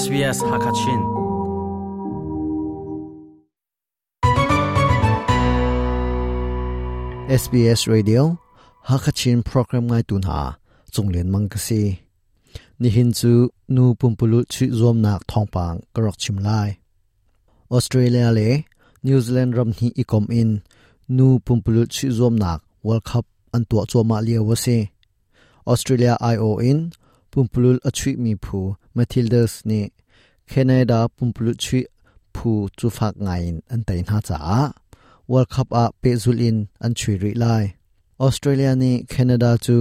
SBS Hakachin. SBS Radio Hakachin program ngai tu hna cunglen mang ka si. Nihin cu nu pumpululh chuih zuamnak thawngpang ka rak chim lai. Australia le New Zealand ram hnih i kom in nu pumpululh chuih zuamnak World Cup an tuah cuahmah lio a si. Australia aiawh in pumpululh a chuihmi phu Matildas nih Canada pumpululh chuih phu cu fak ngaiin an tei hna caah World Cup ah pehzulh in an chuih rih lai. Australia nih Canada cu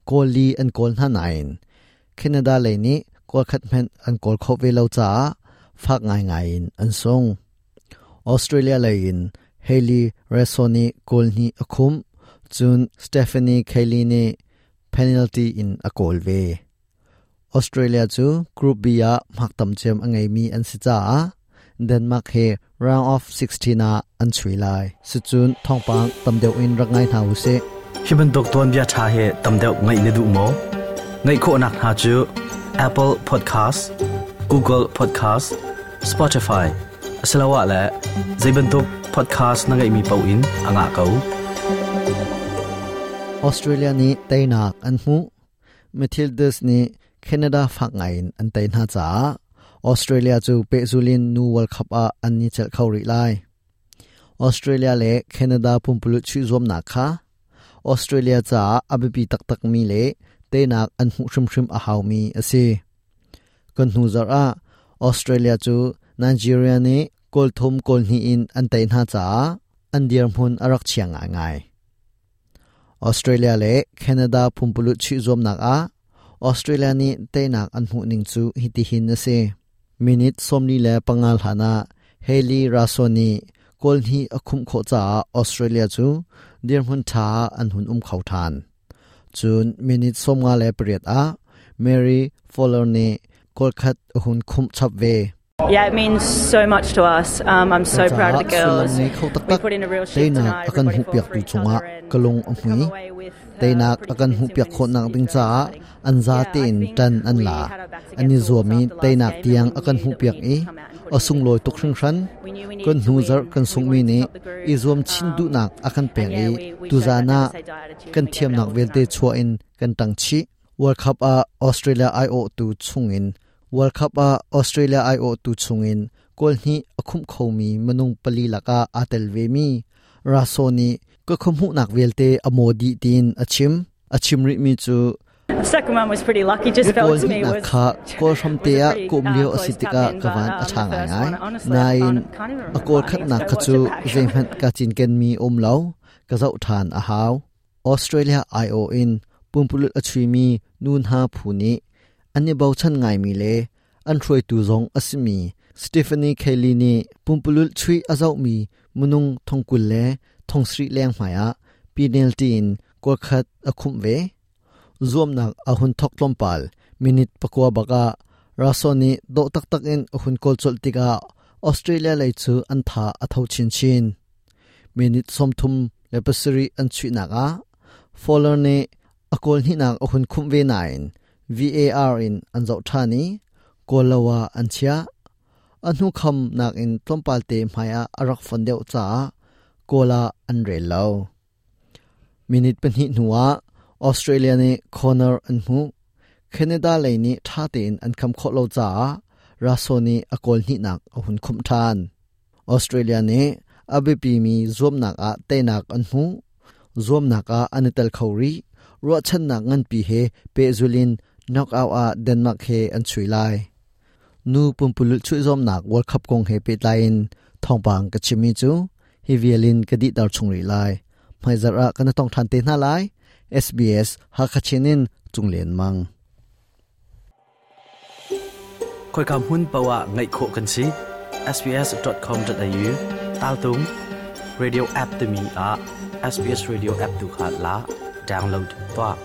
goal li an kawl hna nain Canada lei nih goal khat hmanh an kawl khawh ve lo caah fak ngaingai in an sung. Australia lei in Hayley Raso nih goal hnih a khumh, cun Stephanie Kelly nih penalty in a kawl ve. Australia cu Group B ah hmak tam cem a ngeimi an si caah Denmark he round of 16 ah an chui lai. Sicun thawngpang tam deuh in rak ngai hna usih. Hi bantuk tuanbia ṭha hi tam deuh ngaih na duh maw? Ngaih khawhnak hna cu Apple Podcast, Google Podcast, Spotify asiloah le zei bantuk podcast na ngeihmi paoh in a ngah ko. Australia nih teinak an hmuh. Matildas nih Canada fak ngaiin an tei hna caah Australia cu pehzul in nu World Cup ah an ni celh kho rih lai. Australia le Canada pumpululh chuih zuamnak kha Australia caah a biapi taktakmi le teinak an hmuh hrimhrim a haumi a si. Kan hnu zarh ah Australia cu Nigeria nih goal thum goal hnih in an tei hna caah an dirhmun a rak chia ngaingai. Australia le Canada pumpululh chuih zuamnak ah Australia nih teinak an hmuh ning cu hitihin a si. Minute 45 hlan ah Hayley Raso nih goal hnih a khumh khawh caah Australia cu dirhmun ṭha ah an hun um kho ṭhan. Cun minute 58 ah Mary Fowler nih goal khat a hun khumh chap ve. Yeah, it means so much to us. I'm so proud of the Sullam girls. ngei kho We taktak put in a real shift teinak tonight. a kan Everybody fought hmuhpiaktu for each cungah other and ka lung a to come hmui. away with Teinak pretty a kan convincing hmuhpiak win is, khawhnak is ding very caah exciting. an Yeah, I zatein think ṭan an we la. had our backs An i against the walls zuam i after last teinak game and tiang we a kan knew that we hmuhpiak needed i to come out and put a in a big sunglawi tuk performance. hringhran. We knew we Kan needed to hnu zarh win. kan We sunghmi wanted to nih stop the i groove. zuam chin duhnak a kan And pek yeah, i we showed that tuzaan never ah say die attitude kan and we gave it our thiamnak all vialte tonight. chuah in kan ṭang chih. World Cup ah Australia aiawhtu chungin World Cup ah Australia aiawhtu chungin goal hnih a khumh khomi minung pali lakah aa tel vemi Raso nih ka khuahmuhnak vialte a maw dih tiin a chim. A chim rihmi cu The second one was pretty lucky. Just goal felt to me hnihnak was kha goal was hramte a ah pretty kawm lio a si close tap tikah in, ka but van a ṭha the first ngaingai. one, honestly, I Nain can't even a remember. goal I need to khatnak go kha watch cu it back. zeihmanh ka cinkenmi um lo. Ka zoh ṭhan a hau. Australia aiawh in pumpululh a chuimi nu hna phu nih an i bochan ngaimi le an hruaitu zong a simi Stephanie Kelly nih pumpululh chuih a zohmi minung thongkul le thongsarih leng hmaiah penalty in goal khat a khumh ve. Zuamnak a hun thok tlawmpal minute pakua bakah Raso nih dawh taktak in a hun kawl colh tikah Australia lei cu an tha a tho chinchin. Minute 37 an chuihnak ah Fowler nih a goal hnihnak a hun khumh ve nain VAR in an zoh ṭhan i goal lo ah an chiah. A hnu kham nakin tlawmpal te hmaiah a rak fon deuh caah goal ah an rel lo. Minute pahnih hnuah Australia nih corner an hmuh. Canada lei nih ṭha tein an kham khawh lo caah Raso nih a goal hnihnak a hun khumh ṭhan. Australia nih a biapimi zuamnak ah teinak an hmuh. Zuamnak ah an i tel kho rih. Ruahchannak nganpi he pehzul in knockout ah Denmark he an chui lai. Nu pumpululh chuih zuamnak World Cup kong he pehtlai in thawngpang ka chimmi cu hi vial in ka dihter chung rih lai. Hmaizarh ah kan i tong ṭhan te hna lai. SBS Hakha Chin in Cunglen Mang. Khoika hmun paoh ah ngaih khawh kan si. sbs.com.au taltung radio app timi ah SBS radio app tu kha la download tuah.